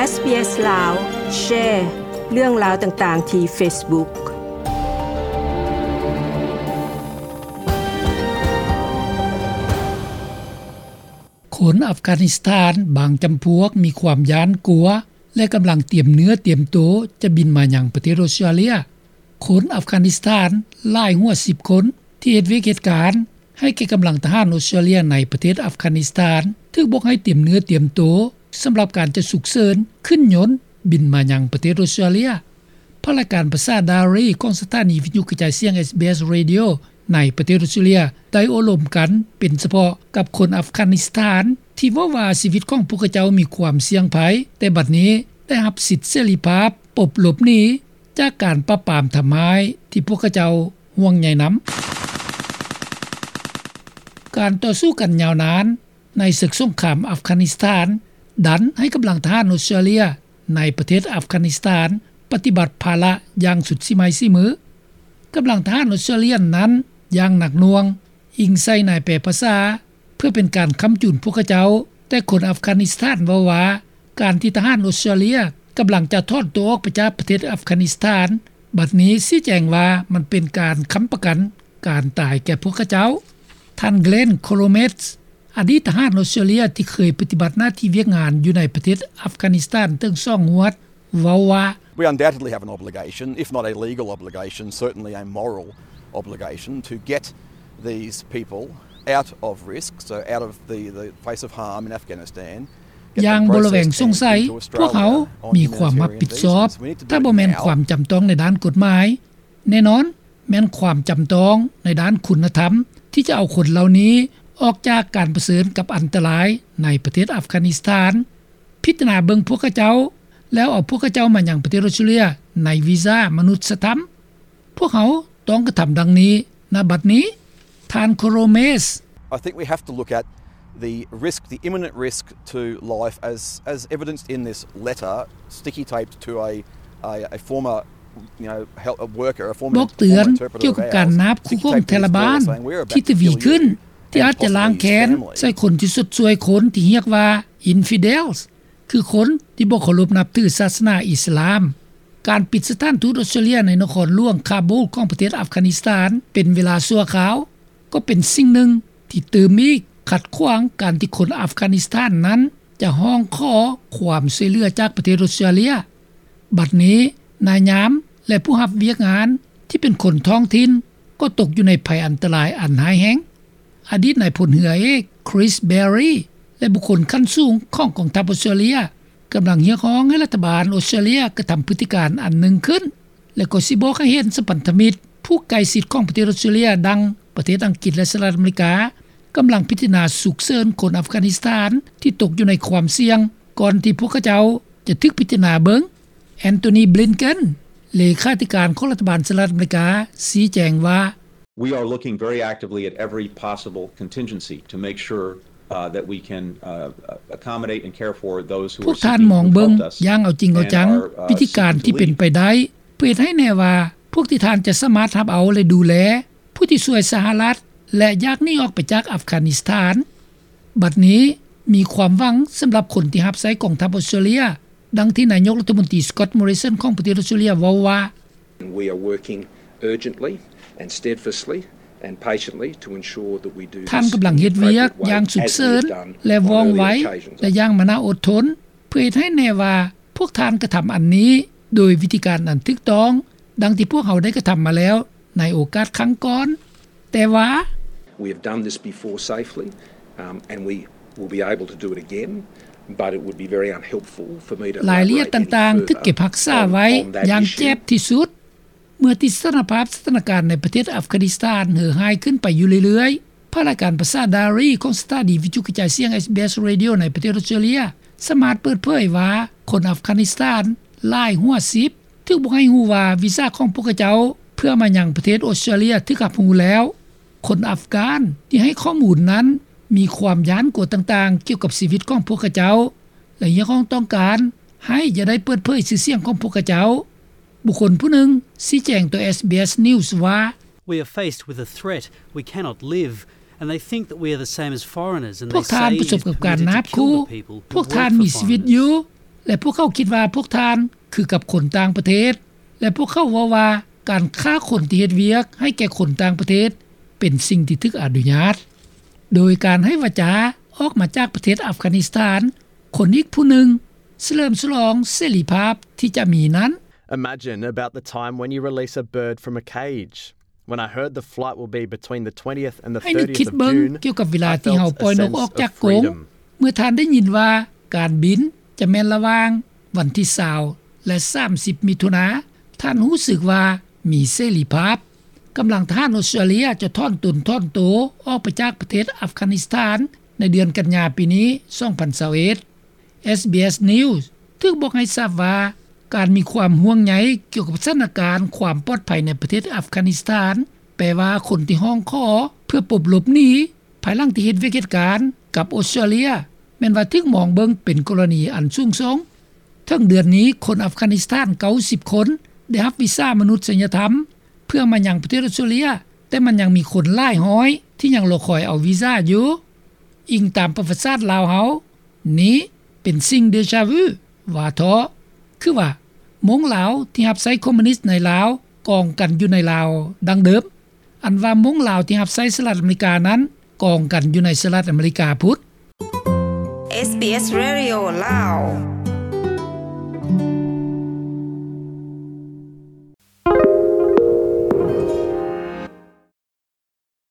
ເອສບີເອສ ລາວ ແຊເລື່ອງລາວຕ່າງໆທີ່ເຟສບຸກ. ຄົນອັຟການິສຖານບາງຈຳພວກມີຄວາມຢ້ານກົວ ແລະ ກຳລັງຕຽມເນື້ອຕຽມໂຕຈະບິນມາຍັງປະເທດອົດສະຕຣາເລຍ. ຄົນອັຟການິສຖານຫຼາຍຫົວສິບຄົນ ທີ່ເຮັດວຽກເຮັດການໃຫ້ແກ່ກຳລັງທະຫານອົດສະຕຣາເລຍໃນປະເທດອັຟການິສຖານ ຖືກບອກໃຫ້ຕຽມເນື້ອຕຽມໂຕສຳລັບການຈະສຸກເສີນຂຶ້ນຍົນບິນມາຍັງປະເທດອົດສະຕຣາເລຍ. ພາກລາຍການພາສາດາຣີຂອງສະຖານີວິທະຍຸກະຈາຍສຽງ ເອສບີເອສ Radio ໃນປະເທດອົດສະຕຣາເລຍ ໄດ້ໂອ້ລົມກັນເປັນສະເພາະກັບຄົນອັຟການິສຖານ ທີ່ເວົ້າວ່າຊີວິດຂອງພວກເຂົາເຈົ້າມີຄວາມສ່ຽງໄພ, ແຕ່ບັດນີ້ໄດ້ຮັບສິດເສລີພາບປົບຫຼົບໜີຈາກການປາບປາມທຳຮ້າຍທີ່ພວກເຂົາເຈົ້າຫ່ວງໃຍນຳ. ການຕໍ່ສູ້ກັນຍາວນານ ໃນເສິກສົງຄາມອັຟການິສຖານ ດັນໃຫ້ກຳລັງທະຫານອົດສະຕຣາເລຍໃນປະເທດອັຟການິສຖານປະຕິບັດພາລະຢ່າງສຸດສີໄມ້ສີມື. ກຳລັງທະຫານອົດສະຕຣາເລຍນັ້ນຢ່າງໜັກໜ່ວງ, ອີງໃສ່ນາຍແປພາສາ ເພື່ອເປັນການຄ້ຳຈູນພວກເຂົາເຈົ້າ, ແຕ່ຄົນອັຟການິສຖານເວົ້າວ່າ ການທີ່ທະຫານອົດສະຕຣາເລຍກຳລັງຈະຖອນຕົວອອກໄປຈາກປະເທດອັຟການິສຖານ ບັດນີ້ຊີ້ແຈງວ່າມັນເປັນການຄ້ຳປະກັນການຕາຍແກ່ພວກເຂົາເຈົ້າ. ທ່ານ Glenn Cromes ອະດີດທະຫານອົດສະຕຣາເລຍທີ່ເຄີຍປະຕິບັດໜ້າທີ່ວຽກງານຢູ່ໃນປະເທດອັຟການິສຖານເຖິງສອງຫວດ ເວົ້າວ່າ We undoubtedly have an obligation, if not a legal obligation, certainly a moral obligation to get these people out of risk, so out of the, the face of harm in Afghanistan. ຢ່າງບໍ່ລະແວງສົງໄສ, ພວກເຮົາມີຄວາມຮັບຜິດຊອບ, ຖ້າບໍ່ແມ່ນຄວາມຈຳຕ້ອງໃນດ້ານກົດໝາຍ, ແນ່ນອນ ແມ່ນຄວາມຈຳຕ້ອງໃນດ້ານຄຸນນະທຳ ທີ່ຈະເອົາຄົນເຫຼົ່ານີ້ອອກຈາກການປະເຊີນກັບອັນຕະລາຍໃນປະເທດອັຟການິສຖານ, ພິຈາລະນາເບິ່ງພວກເຂົາເຈົ້າ ແລ້ວເອົາພວກເຂົາເຈົ້າມາຍັງປະເທດອົດສະຕຣາເລຍໃນວີຊາມະນຸດສະທຳ. ພວກເຮົາຕ້ອງກະທຳດັ່ງນີ້ ນະບັດນີ້. ທ່ານ Cromes. I think we have to look at the risk, the imminent risk to life as, as evidenced in this letter, sticky taped to a, a, a former, you know, health, a worker, a former, ບອກເຕືອນກ່ຽວກັບການນາບຄູ່ຂອງທາລະບານທີ່ທະວີຂຶ້ນ ທີ່ອາດຈະລ້າງແຄ້ນໃສ່ຄົນທີ່ຊົດຊ່ວຍຄົນທີ່ຮຽກວ່າ infidels ຄືຄົນທີ່ບໍ່ເຄົາລົບນັບຖືສາສະໜາອິດສະລາມ. ການປິດສະຖານທູດອົດສະຕຣາເລຍໃນນະຄອນຫຼວງຄາບູລຂອງປະເທດອັຟການິສຖານເປັນເວລາຊົ່ວຄາວ ກໍເປັນສິ່ງໜຶ່ງທີ່ຕື່ມອີກຂັດຂວາງການທີ່ຄົນອັຟການິສຖານນັ້ນຈະຮ້ອງຂໍຄວາມຊ່ວຍເຫຼືອຈາກປະເທດອົດສະຕຣາເລຍ. ບັດນີ້ນາຍຍາມ ແລະ ຜູ້ຮັບວຽກງານທີ່ເປັນຄົນທ້ອງຖິ່ນກໍຕົກຢູ່ໃນໄພອັນຕະລາຍອັນຮ້າຍແຮງ. ອະດີດນາຍພົນເຮືອເອກ Chris Berry ແລະ ບຸກຄົນຂັ້ນສູງຂອງກອງທັບອົດສະຕຣາເລຍ ກຳລັງຮຽກຮ້ອງໃຫ້ລັດຖະບານອົດສະຕຣາເລຍກະທຳພຶດຕິການອັນໜຶ່ງຂຶ້ນ ແລະ ກໍຊິບອກໃຫ້ເຫັນສະພັນທະມິດຜູ້ໃກ້ຊິດຂອງປະເທດອົດສະຕຣາເລຍ ດັ່ງປະເທດອັງກິດ ແລະ ສະຫະລັດອາເມລິກາ ກຳລັງພິຈາລະນາສຸກເສີນຄົນອັຟການິສຖານທີ່ຕົກຢູ່ໃນຄວາມສ່ຽງ ກ່ອນທີ່ພວກເຂົາເຈົ້າຈະຖືກພິຈາລະນາເບິ່ງ. Antony Blinken ເລຂາທິການຂອງລັດຖະບານສະຫະລັດອາເມລິກາ ຊີ້ແຈງວ່າ We are looking very actively at every possible contingency to make sure, uh, that we can, uh, accommodate and care for those who are seeking to help us. ພວກທ່ານມອງເບິ່ງຢ່າງເອົາຈິງເອົາຈັງ and are, uh, ວິທີການທີ່ເປັນໄປໄດ້ ເພື່ອເຮັດໃຫ້ແນ່ວ່າພວກທີ່ທ່ານຈະສາມາດຮັບເອົາ ແລະ ດູແລ ຜູ້ທີ່ຊ່ວຍສະຫະລັດ ແລະ ຢາກໜີອອກໄປຈາກອັຟການິສຖານ. ບັດນີ້ມີຄວາມຫວັງສຳລັບຄົນທີ່ຮັບໃຊ້ກອງທັບອົດສະຕຣາເລຍ ດັ່ງທີ່ນາຍົກລັດຖະມົນຕີ Scott Morrison ຂອງປະເທດອົດສະຕຣາເລຍເວົ້າວ່າ We are working urgently and steadfastly and patiently to ensure that we do this in an appropriate way, as we have done on earlier occasions. ທ່ານກຳລັງເຮັດວຽກຢ່າງສຸກເສີນ ແລະ ວ່ອງໄວ ແລະ ຢ່າງມານາອົດທົນ ເພື່ອເຮັດໃຫ້ແນ່ວ່າພວກທ່ານກະທຳອັນນີ້ໂດຍວິທີການອັນຖືກຕ້ອງ ດັ່ງທີ່ພວກເຮົາໄດ້ກະທຳມາແລ້ວໃນໂອກາດຄັ້ງກ່ອນ. ແຕ່ວ່າ We have done this before safely, um, and we will be able to do it again, but it would be very unhelpful for me to elaborate any further on, on that issue. ລາຍລະອຽດຕ່າງໆຖືກເກັບຮັກສາໄວ້ຢ່າງແຈບທີ່ສຸດ. ເມື່ອທີ່ສະຖານະພາບສະຖານະການໃນປະເທດອັຟການິສຖານເຫື່ອຮ້າຍຂຶ້ນໄປຢູ່ເລື້ອຍໆ, ພາກລາຍການພາສາດາຣີຂອງສະຖານີວິທະຍຸກະຈາຍສຽງ ເອສບີເອສ Radio ໃນປະເທດອົດສະຕຣາເລຍ ສາມາດເປີດເຜີຍວ່າ ຄົນອັຟການິສຖານຫຼາຍຫົວສິບ ຖືກບອກໃຫ້ຮູ້ວ່າວີຊາຂອງພວກເຂົາເຈົ້າເພື່ອມາຍັງປະເທດອົດສະຕຣາເລຍຖືກຮັບຮູ້ແລ້ວ. ຄົນອັຟການທີ່ໃຫ້ຂໍ້ມູນນັ້ນມີຄວາມຢ້ານກົວຕ່າງໆກ່ຽວກັບຊີວິດຂອງພວກເຂົາເຈົ້າ ແລະ ຮຽກຮ້ອງຕ້ອງການໃຫ້ຢ່າໄດ້ເປີດເຜີຍຊື່ສຽງຂອງພວກເຂົາເຈົ້າ. ບຸກຄົນຜູ້ໜຶ່ງຊີ້ແຈງຕໍ່ ເອສບີເອສ News ວ່າ We are faced with a threat. We cannot live. And they think that we are the same as foreigners, and they say it is permitted to kill the people who work for foreigners. ພວກທ່ານປະສົບກັບການນາບຂູ່. ພວກທ່ານມີຊີວິດຢູ່. ແລະ ພວກເຂົາຄິດວ່າພວກທ່ານຄືກັບຄົນຕ່າງປະເທດ ແລະ ພວກເຂົາເວົ້າວ່າການຂ້າຄົນທີ່ເຮັດວຽກໃຫ້ແກ່ຄົນຕ່າງປະເທດເປັນສິ່ງທີ່ຖືກອະນຸຍາດ. ໂດຍການໃຫ້ວາຈາອອກມາຈາກປະເທດອັຟການິສຖານ, ຄົນອີກຜູ້ໜຶ່ງສະເຫຼີມສະຫຼອງເສລີພາບທີ່ຈະມີນັ້ນ. Imagine about the time when you release a bird from a cage. When I heard the flight will be between the twentieth and the thirtieth of June, ໃຫ້ນຶກຄິດເບິ່ງກ່ຽວກັບເວລາທີ່ເຮົາປ່ອຍນົກອອກຈາກກົງ. ເມື່ອທ່ານໄດ້ຍິນວ່າການບິນຈະແມ່ນລະຫວ່າງວັນທີຊາວ ແລະ ສາມສິບ ມິຖຸນາ, ທ່ານຮູ້ສຶກວ່າມີເສລີພາບ. ກຳລັງທະຫານອອສເຕຣເລັຽຈະຖອນຕົນຖອນໂຕອອກໄປຈາກປະເທດອັຟການິສຖານໃນເດືອນກັນຍາປີນີ້ ສອງພັນຊາວເອັດ. ເອສບີເອສ News ຖືກບອກໃຫ້ຊາບວ່າ ການມີຄວາມຫ່ວງໃຍກ່ຽວກັບສະຖານະການຄວາມປອດໄພໃນປະເທດອັຟການິສຖານ ແປວ່າຄົນທີ່ຮ້ອງຂໍເພື່ອປົບຫຼົບໜີ ພາຍຫຼັງທີ່ເຮັດວຽກເຮັດການກັບອອສເຕຣເລັຽ ແມ່ນວ່າຖືກມອງເບິ່ງເປັນກໍລະນີອັນສູງສົ່ງ. ເຖິງເດືອນນີ້ ຄົນອັຟການິສຖານ ເກົ້າສິບຄົນ ໄດ້ຮັບວີຊາມະນຸດສະຍະທຳ ເພື່ອມາຍັງປະເທດອອສເຕຣເລັຽ, ແຕ່ມັນຍັງມີຄົນຫຼາຍຮ້ອຍທີ່ຍັງລໍຄອຍເອົາວີຊາຢູ່. ອີງຕາມປະຫວັດສາດລາວເຮົາ, ນີ້ເປັນສິ່ງເດຈາວື ວ່າເທາະ. ຄືວ່າ ມົ້ງລາວທີ່ຮັບໃຊ້ຄອມມູນິດໃນລາວກອງກັນຢູ່ໃນລາວດັ່ງເດີມ. ອັນວ່າມົ້ງລາວທີ່ຮັບໃຊ້ສະຫະລັດອາເມລິການັ້ນກອງກັນຢູ່ໃນສະຫະລັດອາເມລິກາພຸ້ນ. ເອສບີເອສ Radio ລາວ.